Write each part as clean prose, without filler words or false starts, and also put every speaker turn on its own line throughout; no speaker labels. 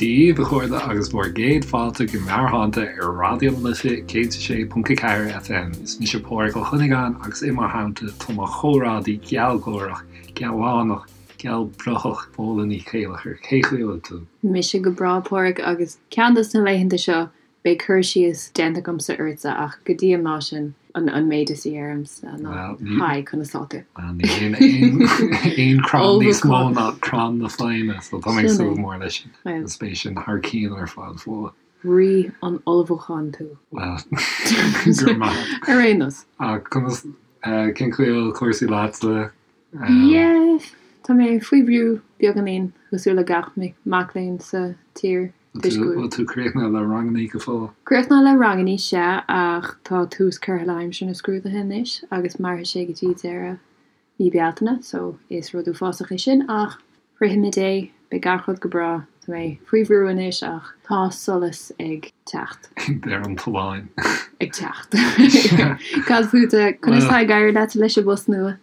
Dia daoibh, a chairde, agus bhur gcéad fáilte go Meabhairshláinte ar Raidió na Life 106.4 FM. Is mise Pádraig Ó Cuinneagáin agus i mo theannta tá mo chomrádaí gealgháireach, gealánach, gealbhruthach, Fódhla Ní Chéilleachair. Cén chaoi a bhfuil tú?
Mise go breá, Pádraig, agus ceann dos na laethanta seo Beidh cur síos déanta agamsa ortsa ach go dtí an lá sin, an méid is a dheirimse ná Hi, conas tá
tú? Bhuel, níl aon crann níos mó ná crann na foighne, so tá mé ag súil go mór leis sin. Agus beidh sin thar cionn ar fad,
Fódhla. Rí an ullmhúcháin
tú. Bhuel, go raibh maith
agat. Ar aon nós.
Ach conas, cén chaoi a bhfuil cúrsaí leatsa?
Yeah, tá mé faoi bhrú beagáinín, cosúil le gach mac léinn sa tír.
Bhfuil tú críochnaithe le rangannaí go
fóill? Críochnaithe le rangannaí, sea, ach tá tús curtha le haimsir na scrúduithe anois agus mairfidh sé go dtí deireadh mí Bealtaine, so is rud uafásach é sin ach shroichfimid é, beidh gach rud go breá. Tá mé faoi bhrú anois ach tá solas ag teacht.
Ag deireadh an tolláin.
Ag teacht. Cad fútsa? Conas tá ag éirí leat leis an bpost nua?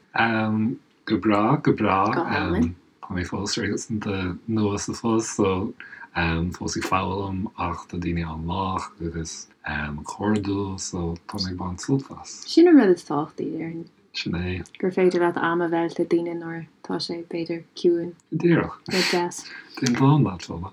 Go breá, go breá. Go hálainn. Tá mé fós réasúnta nua sa phost so fós ag foghlaim ach tá daoine an-lách agus cairdiúil so tá mé ag baint sult as.
Sin an rud is tábhachtaí, déarfainn.
Sin é.
Gur féidir leat am a mheilt le daoine nuair atá sé, b'fhéidir, ciúin.
Go díreach.
Rud deas.
Déan dán leat, Fódhla.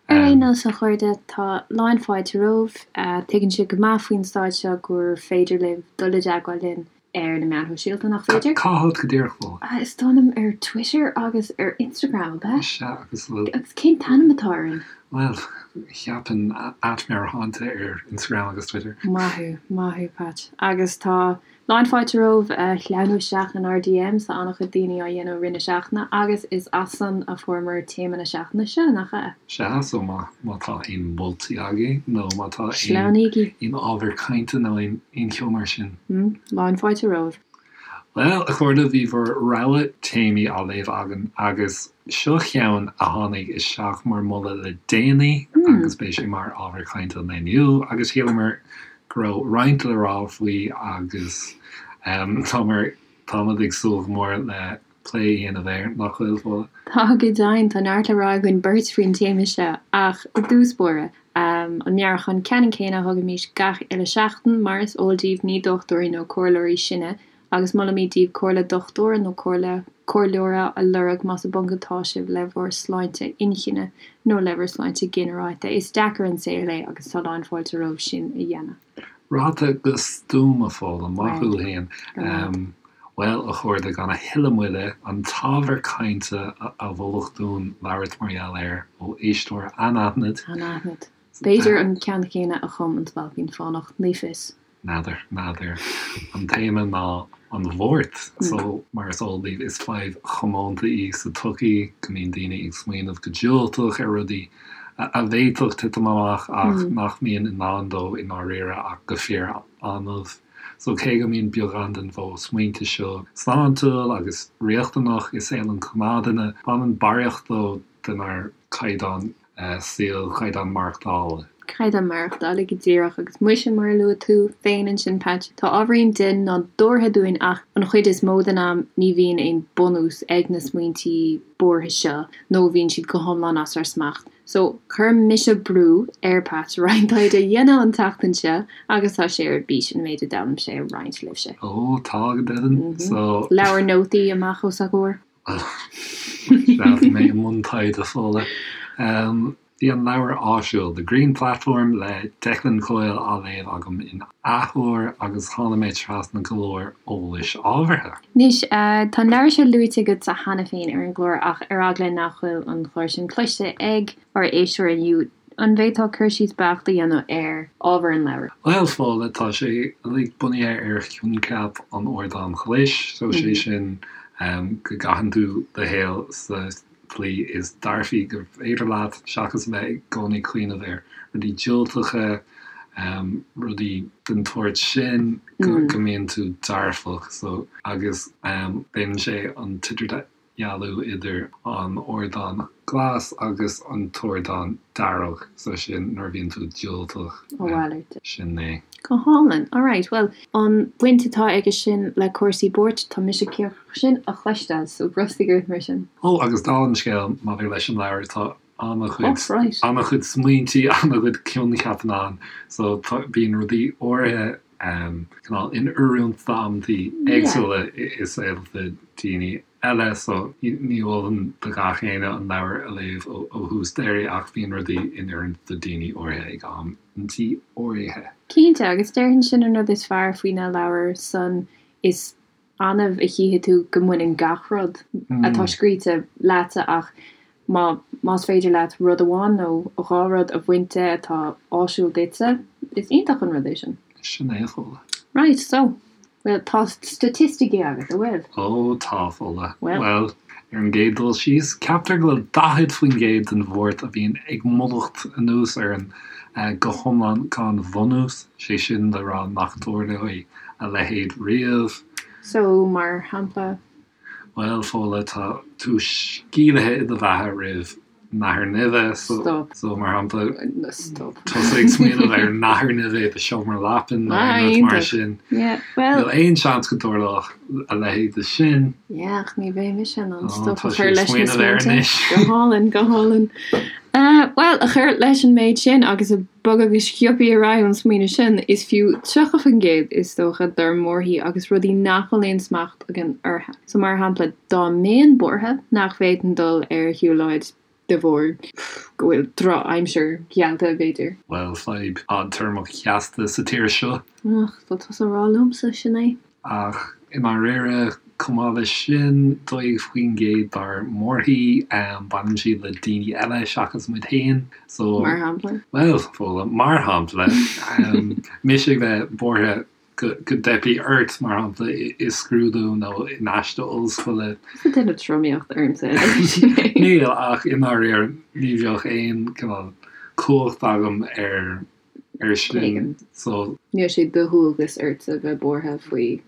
Ar aon nós, a chairde, tá lán fáilte romhaibh. Tuigeann sibh go maith faoin staid seo gur féidir libh dul i dteagmháil linn ar na meáin shóisialta, nach féidir?
Cá háit go díreach, Fódhla?
Is dóigh liom ar Twitter agus ar Instagram, ab
ea? Sea, agus
bhfuil. Agus cén t-ainm atá orainn?
Bhuel, cheapfainn @meabhairshláinte ar Instagram agus Twitter.
Maith thú, maith thú, Patch. Agus tá lán fáilte romhaibh a shleamhnú isteach inár DMs, tá an-chuid daoine á dhéanamh i rith na seachtaine agus is as san a fuaireamar téama na seachtaine seo, nach
ea? Sea, so má tá aon mholtaí agaibh nó má tá
aon
ábhar cainte nó aon cheo mar sin.
Lán fáilte romhaibh.
Bhuel, a chairde, bhí bhur rogha téamaí á léamh againn agus seo cheann a tháinig isteach mar mholadh le déanaí agus beidh sé mar ábhar cainte an lae inniu agus shíleamar go raibh roinnt le rá faoi agus táimid ag súil go mór le plé a dhéanamh air, nach bhfuil,
Fódhla? Tá, go deimhin, tá neart le rá againn beirt faoin téama seo ach i dtús báire, an meabhrúchán ceannann céanna a thugaimis gach uile seachtain, mar is eol daoibh ní dochtúirí nó comhairleoirí sinne agus molaimid daoibh comhairle dochtúra nó comhairle comhairleora a lorg más i bponc atá sibh le bhur sláinte inchinne nó le bhur sláinte ginearálta. Is deacair an saol é agus tá lán fáilte romhaibh sin a dhéanamh.
Ráite go stuama, Fódhla, maith thú fhéin. Bhuel, a chairde, gan a thuilleadh moille, an t-ábhar cainte a moladh dúinn labhairt mar gheall air ó éisteoir
anaithnid. Anaithnid. B'fhéidir an ceann céanna a chum An Spailpín Fánach, ní fios.
N'fheadar, n'fheadar. An téama ná an bhuairt. So, mar is eol daoibh, is fadhb chomónta í sa tsochaí go mbíonn daoine ag smaoineamh go diúltach ar rudaí a bhféadfadh titim amach ach nach mbíonn i ndán dóibh i ndáiríre ach go fíor-annamh. So, cé go mbíonn beagán den mhodh smaointe seo sláintiúil agus riachtanach i saol an ghnáthduine, baineann barraíocht dó denár gcaighdeán saoil, caighdeán
maireachtála. Caighdeán maireachtála go díreach. Agus muise, mar a luaigh tú féin ansin, Patch, tá ábhairín dea-nádúrtha dúinn ach an chuid is mó den am ní bhíonn aon bunús ag na smaointí buartha seo nó bíonn siad go hiomlán as ár smacht. So, chuir mise brú ar Patch roinnt taighde a dhéanamh an tseachtain seo agus tá sé ar bís an méid a d'fhoghlaim sé a roinnt libhse.
Ó, tá go deimhin.
So. Leabhar nótaí amach os a chomhair.
Sea, bhí mé i mbun taighde, Fódhla. Bhí an leabhar áisiúil, The Green Platform le Declan Coyle á léamh agam in athuair agus tháinig mé trasna go leor eolais ábhartha.
Anois, tá an leabhar seo luaite agatsa cheana féin ar an gclár ach ar eagla nach bhfuil an clár sin cloiste ag ár éisteoir inniu, an bhféadfá cur síos beacht a dhéanamh ar ábhar an leabhair?
Bhuel, Fódhla, tá sé uilig bunaithe ar choincheap an ardáin ghlais, so sé sin go gcaitheann tú do shaol sa tslí is dearfaí gur féidir leat, seachas a bheith i gcónaí ag cuimhneamh ar rudaí diúltacha, rudaí den tsórt sin, go mbíonn tú dearfach. So, agus déanann sé an t-idirdhealú idir an ardán glas agus an t-ardán dearg, so sin nuair a bhíonn tú diúltach.
A mhalairt.
Sin é.
Go hálainn. Alright, bhuel, an bhaint atá aige sin le cúrsaí buairt, tá mise cíoch sin a chloisteáil, so brostaigh ort mar sin.
Ó, agus dála an scéil, maidir leis an leabhar, tá. an-chuid, an-chuid smaointí, an-chuid coincheapanna ann, so tá, bíonn rudaí áirithe cineál in oiriúint d'amantaí éagsúla i saolta daoine eile, so ní mholfainn do gach éinne an leabhar a léamh ó thús deiridh ach bíonn rudaí in oiriúint do daoine áirithe ag amantaí áirithe.
Cinnte, agus déarfainn sin an rud is fearr faoi na leabhair san, is annamh a chífidh tú go mbaineann gach rud atá scríte leatsa ach má más féidir leat rud amháin nó dhá rud a bhaint de atá áisiúil duitse, is iontach an rud é sin.
Sin é, a Fhódhla.
Right, so, bhuel, tá staitisticí agat, an bhfuil?
Ó, tá, a Fhódhla. Bhuel. Bhuel, ar an gcéad dul síos, ceaptar go bhfuil 40% den bhuairt a bhíonn ag mullacht anuas orainn go hiomlán gan bhunús, sé sin le rá nach dtarlóidh a leithéid riamh.
So, mar shampla?
Bhuel, Fódhla, tá tú sceimhlithe i do bheatha roimh nathair nimhe, so,
Stop.
so mar shampla,
Stop.
tusa ag smaoineamh ar nathair nimhe i do sheomra leapan nó
Ah,
aon rud mar
iontach.
sin.
Yeah, well.
Níl aon seans go dtarlódh a leithéid de sin.
Yeah, ach ní bheidh mise in ann
Oh,
stop
tá
a
sí
chur
ag
leis na
smaoineamh air
smaointe.
anois.
Go hálainn, go hálainn. Uh, well, a chur leis an méid sin agus ag bogadh go sciobtha ar aghaidh ón smaoineamh sin, is fiú 30% is dócha dár mbuarthaí agus rudaí nach bhfuil aon smacht againn orthu. So mar shampla, dá mbeinn buartha nach bhféadfainn dul ar shiúlóid de bharr go bhfuil drochaimsir geallta, b'fhéidir.
Bhuel, fadhb fhadtéarmach sheasta sa tír seo.
Ach, tá tusa a rá liomsa, sin é.
Ach i ndáiríre, chomh maith leis sin, 12% dár mbuarthaí, baineann siad le daoine eile seachas muid féin.
So. Mar shampla?
Bhuel, Fódhla, mar shampla, mise ag bheith buartha go dteipfidh ort, mar shampla, i scrúdú nó in aiste ollscoile.
Tusa ag déanamh tromaíocht ormsa, sin
é. Níl, ach i ndáiríre, ní bheadh aon cineál cumhacht agam ar ar sin. So.
Níl sé de dhualgas ortsa bheith buartha faoi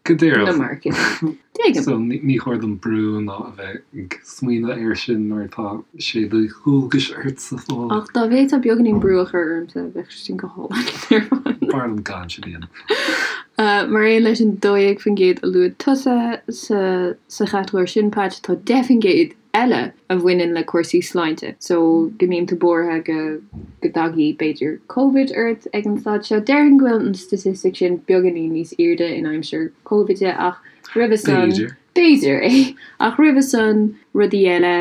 Go díreach.
na marcanna. Tuigim.
So ní chóir dom brú ná a bheith ag smaoineamh air sin nuair atá sé de dhualgas ortsa
Fódhla. Ach dá bhféadfá beagáinín brú a chur ormsa, bheadh sin go hálainn ar
fad. B'fhearr liom gan sin a
dhéanamh. Mar aon leis an 12% a luaigh tusa sa sa chatagóir sin, Patch, tá 10% eile a bhaineann le cúrsaí sláinte. So, go mbíonn tú buartha go go dtagaidh, b'fhéidir, Covid ort ag an staid seo. Déarfainn go bhfuil an statistic sin beagáinín níos airde in aimsir Covid ach roimhe san,
B'fhéidir.
b'fhéidir, eh? Ach roimhe san, rudaí eile,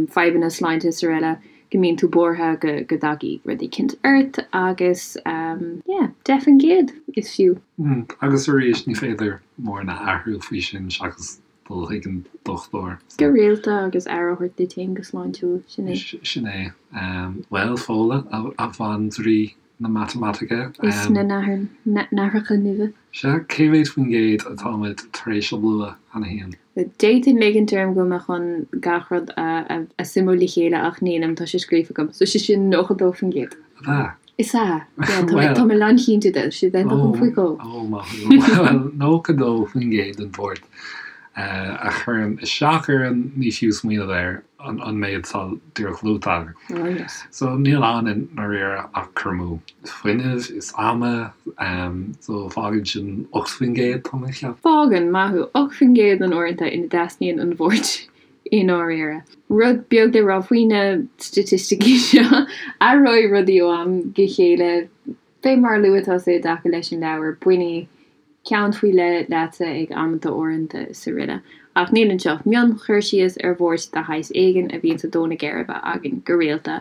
fadhbanna sláinte is araile, go mbíonn tú buartha go go dtagaidh rud eicínt ort agus, yeah, 10% is fiú.
Agus arís, ní féidir mórán a athrú faoi sin seachas dul chuig an dochtúir.
Go rialta agus aire a thabhairt duit féin go sláintiúil, sin é.
Sin é. Bhuel, Fódhla, a bhandraoi na matamaitice.
Is na nathracha nimhe.
Sea, cé mhéad faoin gcéad atáimid tar éis a lua cheana féin?
D'fhéadfainn ligint orm go bhfuil mé chun gach rud a suimiú le chéile ach nílim, tá sé scríofa agam. So sé sin 92%.
Ab ea?
Is ea. Yeah, tá mé, tá mé lánchinnte de. Sé den dom faoi dhó.
Ó, maith thú. Bhuel, 92% den bhuairt a chuireann isteach orainn, ní fiú smaoineamh air, an méid atá díreach luaite agam.
Oh, yes.
So, níl ann i ndáiríre ach cur amú fuinnimh is ama, so fágann sin 8%, tá mé ag
ceapadh. Fágann, maith thú, 8% den uaireanta ina dteastaíonn an bhuairt i ndáiríre. Rud beag le rá faoi na staitisticí seo, athróidh rudaí ó am go chéile. Fé mar a luaigh tusa i dtaca leis an leabhar, bainfidh ceann faoi leith leatsa ag amanta áirithe is araile. Ach níl anseo ach mion-chur síos ar bhuairt de shaghas éigin a bhíonns ag dó na geirbe againn go rialta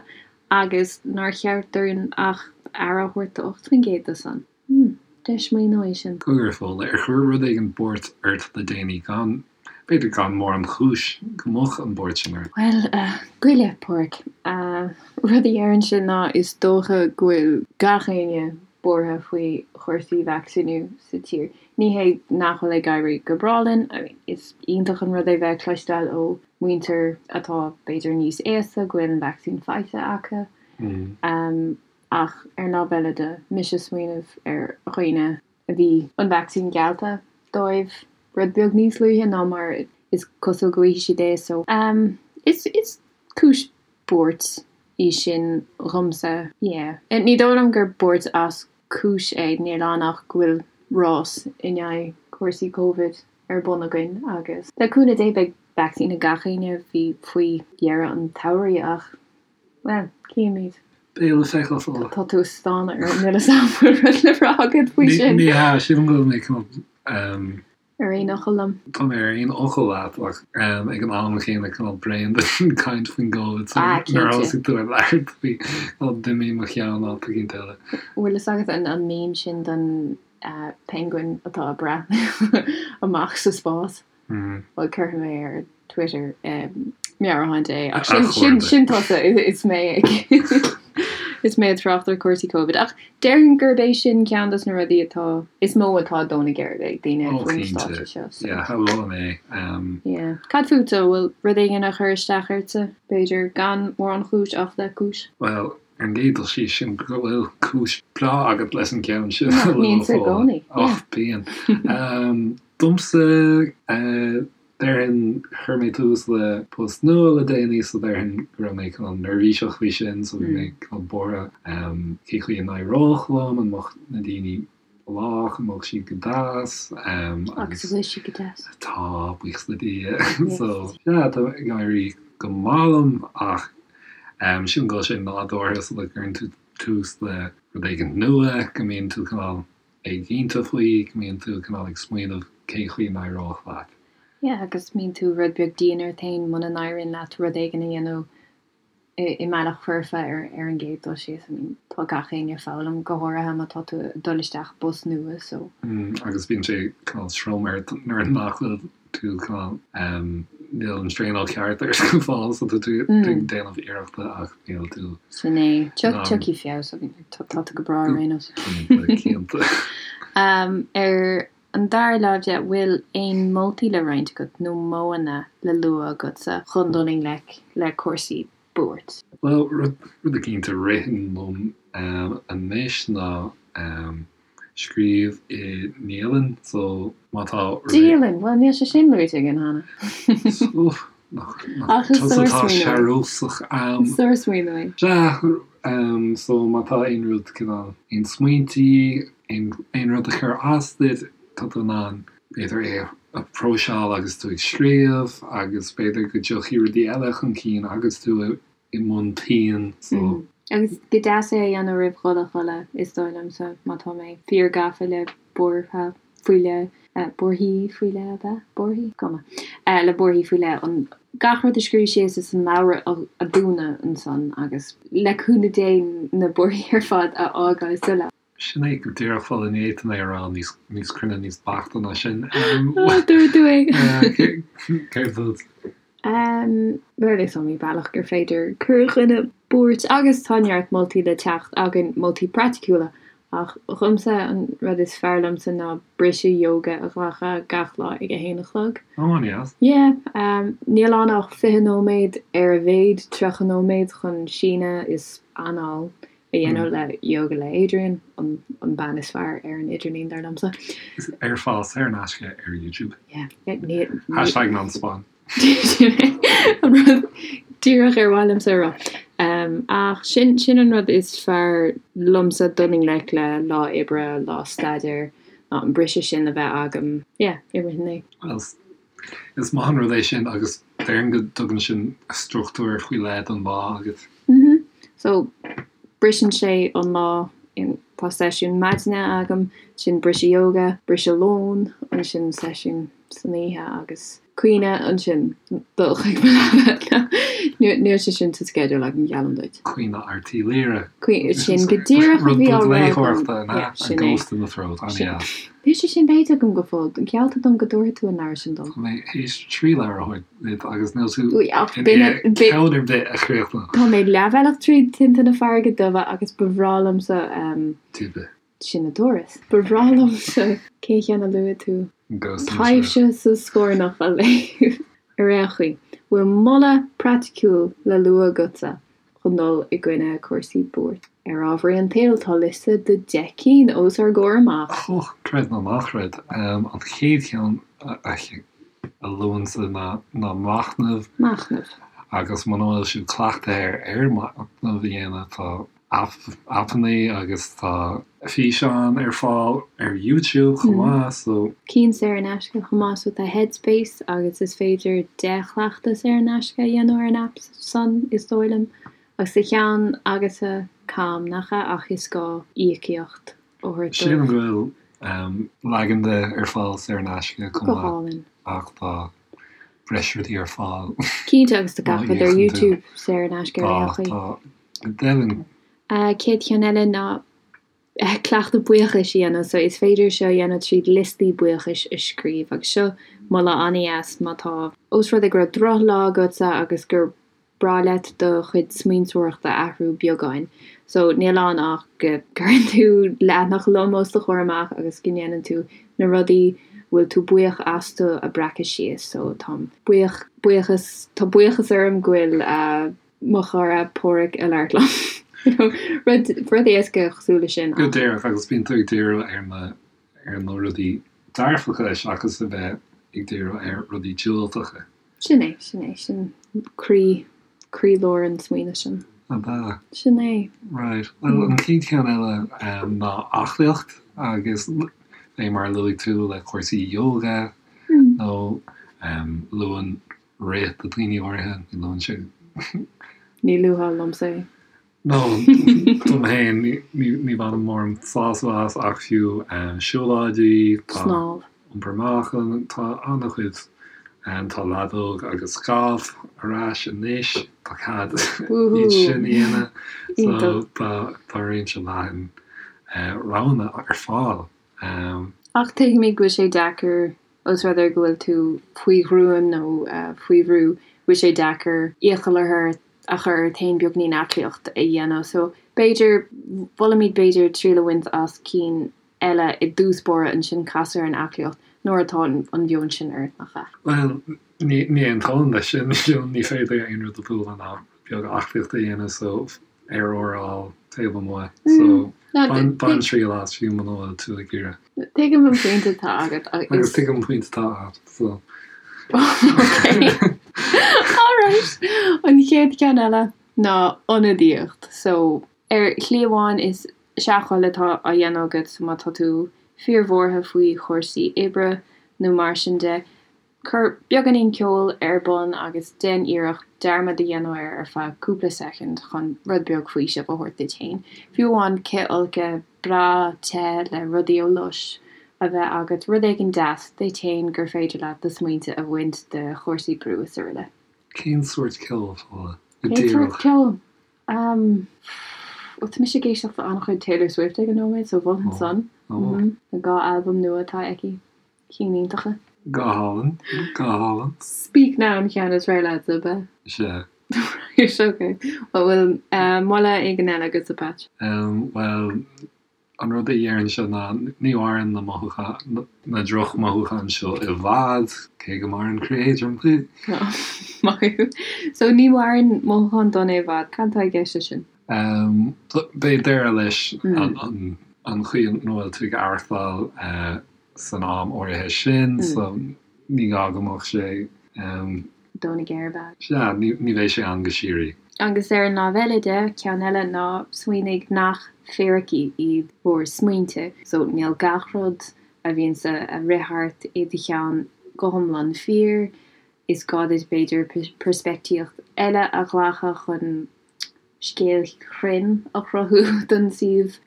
agus nár cheart dúinn ach aire a thabhairt do 8% de san. Hmm, deis smaoineamh é sin.
Cogar, a Fhódhla, ar chuir rud éigin buairt ort le déanaí gan, b'fhéidir gan mórán cúis go mbeadh an bhuairt sin ort?
Bhuel, a, goile, Páraic. Rud a déarfainnse ná is dócha go bhfuil gach éinne buartha faoi chúrsaí vacsaíniú sa tír. Ní hé nach bhfuil ag éirí go breá linn, I mean, is iontach an rud é bheith ag cloisteáil ó mhuintir atá b'fhéidir níos aosta go bhfuil an vacsaín faighte acu. Ach ar an lámh eile de, mise ag smaoineamh ar dhaoine a bhí an vacsaín geallta dóibh rud beag níos luaithe ná mar is cosúil go bhfaighidh siad é so is is cúis buairt í sin dhomsa. Yeah. Ní dóigh liom gur buairt as cúis é, níl ann ach go bhfuil rás in aghaidh cúrsaí Covid ar bun againn agus le cúnamh Dé beidh vacsaín ag gach éinne faoi dheireadh an tsamhraidh ach. Bhuel, cífimid.
Beidh le feiceáil Fódhla.
Tá tú ag stánadh orm, níl 'fhios a'm bhfuil rud le rá agat faoi sin.
Ní hea, sílim go bhfuil mé cineál.
Ar aon fhocal liom.
Tá mé ar aon fhocal leat ach ag an am chéanna cineál bréan den caint faoin gCovid so nuair a thosaigh tú ag labhairt faoi cineál d'imigh mo cheann áit eicínt eile.
Bhfuil fhios agat an meme sin den penguin atá ag breathnú amach sa spás? Bhuel cuirfidh mé ar Twitter meabhrúchán Dé ach sin sin sin tusa is mé ag is mé ag trácht ar cúrsaí Covid ach déarfainn gurb é sin ceann dos na rudaí atá is mó atá ag dó na geirbe ag daoine
Ó
faoin
cinnte
stáitse seo so.
yeah shamhlóinn é.
Yeah. Cad fútsa, an bhfuil rud éigin a chuir isteach ortsa? B'fhéidir gan mórán chúis ach le cúis?
Bhuel ar an gcéad dul síos sílim go bhfuil cúis breá agat leis an gceann sin a
Nach
lua
mbíonn sa
Fódhla.
gcónaí, yeah.
Och bíonn. Domsa Déarfainn, chuir mé tús le post nua le déanaí so déarfainn go raibh mé cineál neirbhíseach faoi sin so bhí mé cineál buartha cé chaoi a n-éireodh liom, an mbeadh na daoine lách, an mbeadh siad go deas
agus an bhfuil siad go deas?
Tá, buíochas le Dia. So yeah, tá ag éirí go maith liom ach sílim go bhfuil sé nádúrtha sula gcuireann tú tús le rud éigin nua go mbíonn tú cineál éiginnte faoi, go mbíonn tú cineál ag smaoineamh cén chaoi a n-éireodh leat.
Yeah, agus mbíonn tú rud beag dian ort féin muna n-éiríonn leat rud éigin a dhéanamh i mbealach foirfe ar ar an gcéad dul síos. I mean, tá gach éinne ag foghlaim, go háirithe má tá tú ag dul isteach i bpost nua, so.
Mm, agus bíonn sé cineál trom ort nuair nach bhfuil tú cineál, níl an traenáil ceart ort go fóill so tá tú ag déanamh iarrachta ach níl tú.
Sin é. Tiocfaidh feabhas, tá tú go breá ar aon nós.
Cinnte, cinnte.
Ar an dara láimh de, bhfuil aon moltaí le roinnt agat nó modhanna le lua agatsa chun dul i ngleic le cúrsaí buairt?
Bhuel, rud eicínt a ritheann liom anois ná Scríobh i ndialann, so má tá.
Dialann! Bhuel, níl sé sin luaite againn cheana.
Nach tusa atá searbhósach am.
Is sár-smaoineamh é.
Sea, so má tá aon rud cineál, aon smaointí, aon rud a chuir as duit, tá tú in ann b'fhéidir é a phróiseáil agus tú ag scríobh agus b'fhéidir go dtiocfaidh rudaí eile chun cinn agus tú i mbun pinn so.
Agus go deas é a dhéanamh roimh dhul a chodladh, is dóigh liomsa, má tá mé fíor gafa le buartha faoi leith, buarthaí faoi leith ab ea? Buarthaí? Cuma. Le buarthaí faoi leith, an gach rud a scríobh síos is an leabhar a dhúnadh ansan agus le cúnamh Dé na buarthaí ar fad a fhágáil sa leabhar.
Sin é go díreach Fódhla, ní fhéadfainn é a rá níos níos cruinne, níos beaichte ná sin.
Dúirt tú é!
Céard fút?
Bhuel, is iomaí bealach gur féidir cur i gcoinne buairt agus tá neart moltaí le teacht againn, moltaí praiticiúla, ach dhomsa an rud is fearr liomsa ná briseadh yoga a ghlacadh gach lá ag a haon a chlog.
Ó, an-deas.
Yeah, níl ann ach 20 nóiméad, ar a mhéad 30 nóiméad chun síneadh is anáil a dhéanamh le Yoga le Adriene, an bean is fearr ar an idirlíon, dar liomsa.
Is ar fáil saor in aisce ar YouTube.
Yeah.
Hashtag non spon.
An rud díreach ar mhaith liomsa a rá. Ach sin sin an rud is fearr liomsa dul i ngleic le lá oibre, lá staidéir, ná an briseadh sin a bheith agam, yeah, i rith an lae.
Well, Is maith an rud é sin agus déarfainn go dtugann sin struchtúr faoi leith don lá agat.
Mhm. So, briseann sé an lá in, tá seisiún maidine agam, ansin briseadh yoga, briseadh lóin, ansin seisiún san oíche agus caoineadh, ansin dul chuig mo leaba. Níl sé sin sa sceideal agam, geallaim duit.
Caoineadh Airt Uí Laoghaire.
Sin go díreach a
Rud
bhí á
beag
rá agam.
léitheoireachta, an ea?
Yeah,
A
sin é.
Ghost in the Throat, an-dheas.
Níl sé sin léite agam go fóill. Geallta dom go dtabharfaidh tú an leabhar sin dom.
Tá mé théis 3 leabhar a thabhairt duit agus níl tú i ndiaidh ceann ar bith a chríochnú.
Tá mé leathbhealach tríd Tinte na Farraige Duibhe agus ba bhreá liomsa.
Dubhe.
Sin an turas. Ba bhreá liomsa cén cheann a luaigh tú?
Ghost in the Throat.
Taibhse sa Scornach a léamh. Ar aon chaoi, bhfuil moladh praiticiúil le lua agatsa chun dul i gcoinne cúrsaí buairt. Ar ámharaí an tsaoil, tá liosta de 10 cinn os ár gcomhair amach.
Och, creid nó ná creid, an chéad cheann a luainnse ná machnamh.
Machnamh.
Agus muna bhfuil sibh cleachtaithe ar machnamh a dhéanamh, tá aipeanna agus tá físeáin ar fáil ar YouTube chomh maith, so.
Cinn saor in aisce chomh maith, so tá Headspace agus is féidir 10 chleachtas saor in aisce a dhéanamh ar an aip san, is dóigh liom. Agus sa cheann agatsa Calm, nach ea? Ach is gá íocaíocht a thabhairt dóibh.
Sílim go bhfuil leagan de ar fáil saor in aisce chomh
Go
maith
hálainn.
ach tá breis rudaí ar fáil
Cinnte, agus tá
má
gach rud ar
íocann tú.
YouTube saor in aisce ar
Tá,
aon chaoi.
tá, go deimhin.
Chéad cheann eile ná cleachtadh buíochais a dhéanamh. So is féidir seo a dhéanamh tríd liostaí buíochais a scríobh agus seo moladh an-dheas má tá, ós rud é go raibh drochlá agatsa agus gur breá leat do chuid smaointeoireachta a athrú beagáin. So níl ann ach go gcuireann tú leathanach lom os do chomhair amach agus go ndéanann tú na rudaí a bhfuil tú buíoch astu a breacadh síos. So táim buíoch, buíochas, tá buíochas orm go bhfuil eh mo chara Páraic ag labhairt liom. You know, rud, rud éasca cosúil leis sin
Go
ach.
díreach, agus bíonn tú ag díriú ar na, ar na rudaí dearfacha seachas a bheith ag díriú ar rudaí diúltacha.
Sin é, sin é, sin croí, croílár an smaoinimh sin.
Ab ea?
Sin é.
Right. Bhuel, an chéad cheann eile ná aclaíocht agus fé mar a luaigh tú le cúrsaí yoga nó luann rith do dhaoine áirithe, ní luann sé.
Ní luafá liomsa é.
No, dom féin, ní bhainim mórán sásamh as ach fiú siúlóidí, tá
Snámh.
iompar meáchain, tá an-chuid, tá leadóg agus galf ar ais anois, tá cead iad sin a dhéanamh, so tá tá réimse leathan roghanna ar fáil.
Ach tuigimid go bhfuil sé deacair, ós rud é go bhfuil tú faoi ghruaim nó faoi bhrú, go bhfuil sé deacair iachall a chur a chur ort féin beagnín aclaíocht a dhéanamh. So b'fhéidir, molaimid b'fhéidir triail a bhaint as cinn eile i dtús báire ansin casadh ar an aclaíocht nuair atá an mheon sin ort, nach ea?
Bhuel, ní aontóinn leis sin, ní féidir aon rud a bhualadh ná beag aclaíocht a dhéanamh so aer úr a fháil taobh amuigh so bain bain triail as fiú muna bhfuil tú ag iarraidh.
Tuigim an pointe atá agat
agus. Agus tuigim an pointe atá agat so.
Ok. Alright. An chéad cheann eile ná ionadaíocht. So ar shlí amháin is seachthoil atá á dhéanamh agat so má tá tú fíorbhuartha faoi chúrsaí oibre nó mar sin de, Cuir beagáinín ceoil ar bun agus déan iarracht dearmad a dhéanamh air ar feadh cúpla soicind chun rud beag faoisimh a thabhairt duit féin. Fiú amháin cithfholcadh breá te le rudaí ó Lush a bheith agat, rud éigin deas duit féin gur féidir leat do smaointe a bhaint de chúrsaí brú is araile.
Cén sórt ceoil, Fódhla?
Go Cén sórt díreach. ceoil? Umm, bhuel tá mise ag éisteacht le an-chuid Taylor Swift ag an nóiméad so mholfainn san. Na 2 albam nua atá aici. Cinn iontacha.
Go hálainn, go hálainn.
Speak Now an ceann is fearr leatsa, ab
ea? Sea.
Right, ok. Bhuel, bhfuil moladh éigin eile agatsa, Patch?
Bhuel, an rud a déarfainnse ná ní mhaireann na mothúcháin, na drochmhothúcháin seo i bhfad, cé go maireann croí éadrom.
Maith thú. So, ní mhaireann mothúcháin dona i bhfad. Cad atá i gceist leis sin?
Beidh deireadh leis an chaoi a bhfuil tú ag aireachtáil san am áirithe sin so ní gá go mbeadh sé.
Dona géar, ab ea?
Sea, ní bheidh sé ann go síoraí.
Agus ar an lámh eile de, ceann eile ná smaoinigh nach fíricí iad bhur smaointe. So níl gach rud a bhíonns ag rith thart i do cheann go hiomlán fíor. Is gá duit b'fhéidir peirspictíocht eile a ghlacadh chun scéal chruinn a chruthú don suíomh.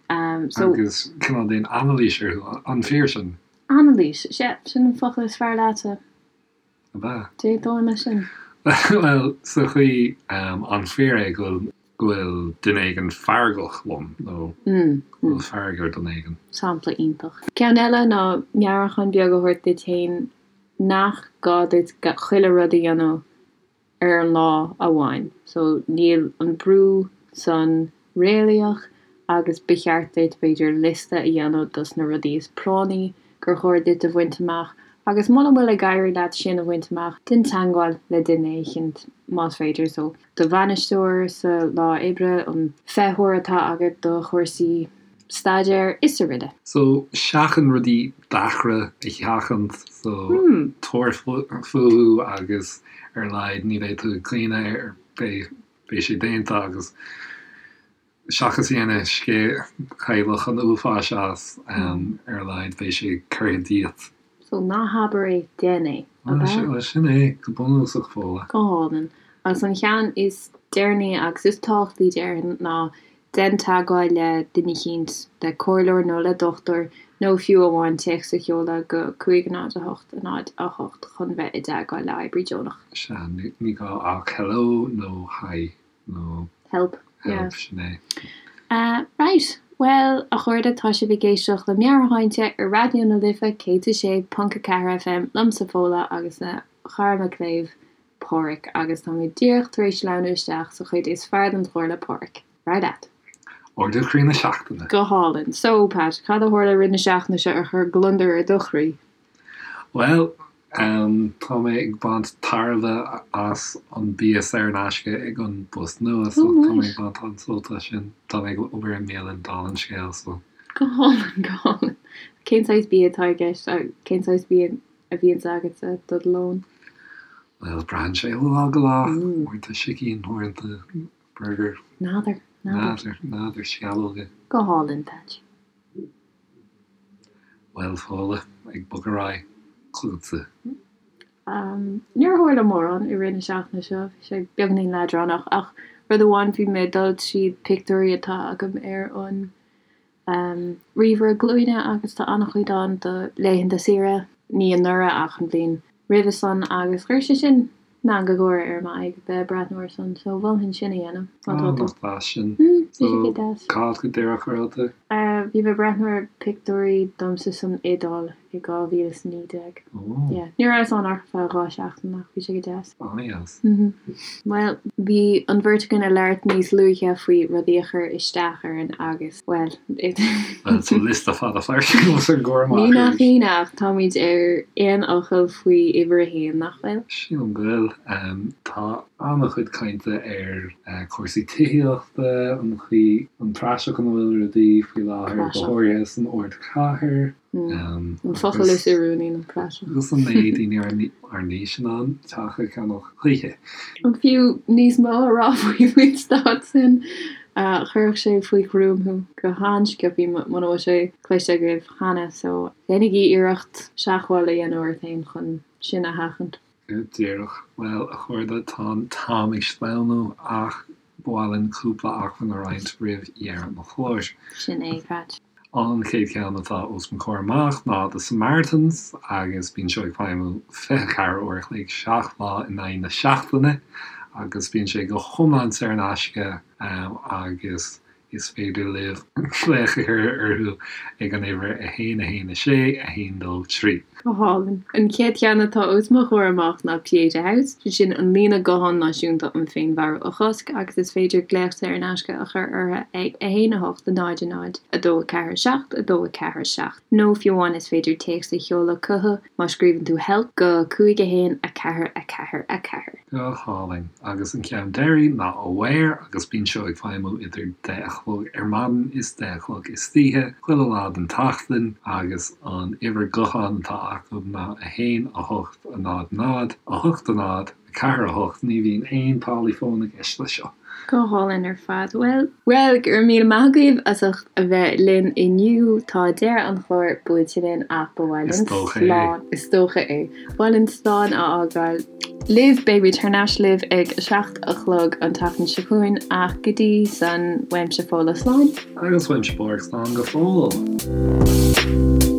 So. Agus cineál déan anailís orthu, an fíor sin?
Anailís, sea, sin an focal is fearr leatsa.
Ab ea?
D'aontóinn leis sin.
Bhuel, sa chaoi, an fíor é go bhfuil go bhfuil duine éigin feargach liom nó go bhfuil fearg ar dhuine éigin?
Sampla iontach. Ceann eile ná meabhrúchán beag a thabhairt duit féin nach gá duit chuile rud a dhéanamh ar an lá amháin. So níl an brú san réalaíoch agus ba cheart duit b'fhéidir liosta a dhéanamh dos na rudaí is práinní gur chóir duit a bhaint amach agus muna bhfuil ag éirí leat sin a bhaint amach déan teagmháil le duine éicint más féidir so do bhainisteoir sa lá oibre, an feitheoir atá agat do chúrsaí staidéir is araile.
So, seachain rudaí deacra a sheachaint, so tabhair fúthu agus ar a laghad ní bheidh tú ag caoineadh air, beidh, beidh sé déanta agus seachas a dhéanamh scéal chailleach an uafáis as, ar a laghad beidh sé curtha díot.
So, ná habair é, déan é,
ab ea? Bhuel, sin é, go bunúsach, Fódhla.
Go hálainn. Agus an cheann is deireanaí agus is tábhachtaí déarfainn ná déan teagmháil le duine eicínt, le comhairleoir nó le dochtúir nó fiú amháin téacs a sheoladh go 5 0 8 0 8 chun bheith i dteagmháil le oibrí deonach.
Sea, ní gá ach hello nó hi nó
help,
help, sin é.
Right, bhuel, a chairde, tá sibh ag éisteacht le Meabhairshláinte ar Raidió na Life 106.4 FM, liomsa Fódhla agus mo chara mo chléibh, Páraic, agus táimid díreach tar éis sleamhnú isteach sa chuid is fearr den chlár le Páraic. Ar aghaidh leat.
Ardú croí na seachtaine.
Go hálainn. So, Pat, cad a tharla i rith na seachtaine seo a chuir gliondar ar do chroí?
Bhuel, tá mé ag baint tairbhe as an bia saor in aisce ag an bpost nua, so tá mé ag baint an-sult as sin. Tá mé ag obair i mbialann, dála an scéil, so.
Go hálainn, go hálainn. Cén saghas bia atá i gceist? Cén saghas bia a bhíonns agatsa do do lón?
Bhuel, braitheann sé ó lá go lá. Uaireanta sicín, uaireanta burger.
N'fheadar,
n'fheadar. N'fheadar, sceallóga.
Go hálainn, Patch.
Bhuel, Fódhla, ag bogadh ar aghaidh chugatsa.
Níor tharla mórán i rith na seachtaine seo, bhí sé beagainín leadránach, ach rud amháin, bhí mé ag dul tríd pictiúirí atá agam ar an ríomhaire glúine agus tá an-chuid ann do laethanta saoire, ní anuraidh ach an bhliain roimhe san agus chuir sé sin meangadh gáire ar m'aghaidh bheith ag breathnú air san so mholfainn sin a dhéanamh
má tá tú. Nach deas sin. Bhí sé go deas. Cá go díreach a raibh tú?
Bhí mé ag breathnú ar pictiúirí domsa san Iodáil i 2019. Yeah. Ní rabhas ann ach ar feadh 2 seachtain ach bhí sé go deas.
An-deas.
Bhuel, bhí an bheirt againn ag labhairt níos luaithe faoi rudaí a chuir isteach orainn agus, bhuel,
Bhuel, tá liosta fada fairsing os ár gcomhair
amach Ní nach arís. ionadh ach táimid ar aon fhocal faoi uimhir a haon, nach bhfuil?
Sílim go bhfuil. Tá an-chuid cainte ar chúrsaí tithíochta, an chaoi, an praiseach ina bhfuil rudaí faoi láthair, go háirithe san ardchathair.
An focal is oiriúnaí ná
praiseach. Agus an mbeidh daoine ár n-aois in ann teach a cheannach choíche?
An fiú níos mó a rá faoi faoin staid sin? Chuirfeadh sé faoi ghruaim thú go han-sciobtha muna bhfuil sé cloiste agaibh cheana so déanaigí iarracht seachmháil a dhéanamh ort féin chun sin a sheachaint.
Go díreach. Bhuel, a chairde, tá an t-am ag sleamhnú ach Ba mhaith linn cúpla acmhainn a roinnt roimh dheireadh an chláir.
Sin é, Patch.
An chéad cheann atá os mo chomhair amach ná The Samaritans agus bíonn seo ag feidhmiú 24 uair a chloig, 7 lá in aghaidh na seachtaine agus bíonn sé go hiomlán saor in aisce agus Is féidir libh glaoch a chur orthu ag an uimhir 1 1 6 1 2 3.
Go hálainn. An chéad cheann atá os mo chomhair amach ná Pieta House, sé sin an líne gutháin náisiúnta um féinmharú a chosc agus is féidir glaoch saor in aisce a chur orthu ag 1 8 0 0 2 4 7 2 4 7 nó fiú amháin is féidir téacs a sheoladh chucu má scríobhann tú help go 5 1 4 4 4.
Go hálainn. Agus an ceann deiridh ná Aware agus bíonn seo ag feidhmiú idir deich a chlog ar maidin is deich a chlog istoíche, chuile lá den tseachtain, agus an uimhir gutháin atá acu ná 1 8 0 0 8 0 4 8. Ní bhíonn aon táillí fóin i gceist leis seo.
Go hálainn ar fad. Bhuel, bhuel, go raibh míle maith agaibh as ucht a bheith linn inniu. Tá deireadh an chláir buailte linn ach ba mhaith linn slán, is dócha é, ba mhaith linn slán a fhágáil libh. Beimid thar n-ais libh ag 7 a chlog an tseachtain seo chugainn ach go dtí san, uaimse Fódhla slán.
Agus uaimse Páraic slán go fóill.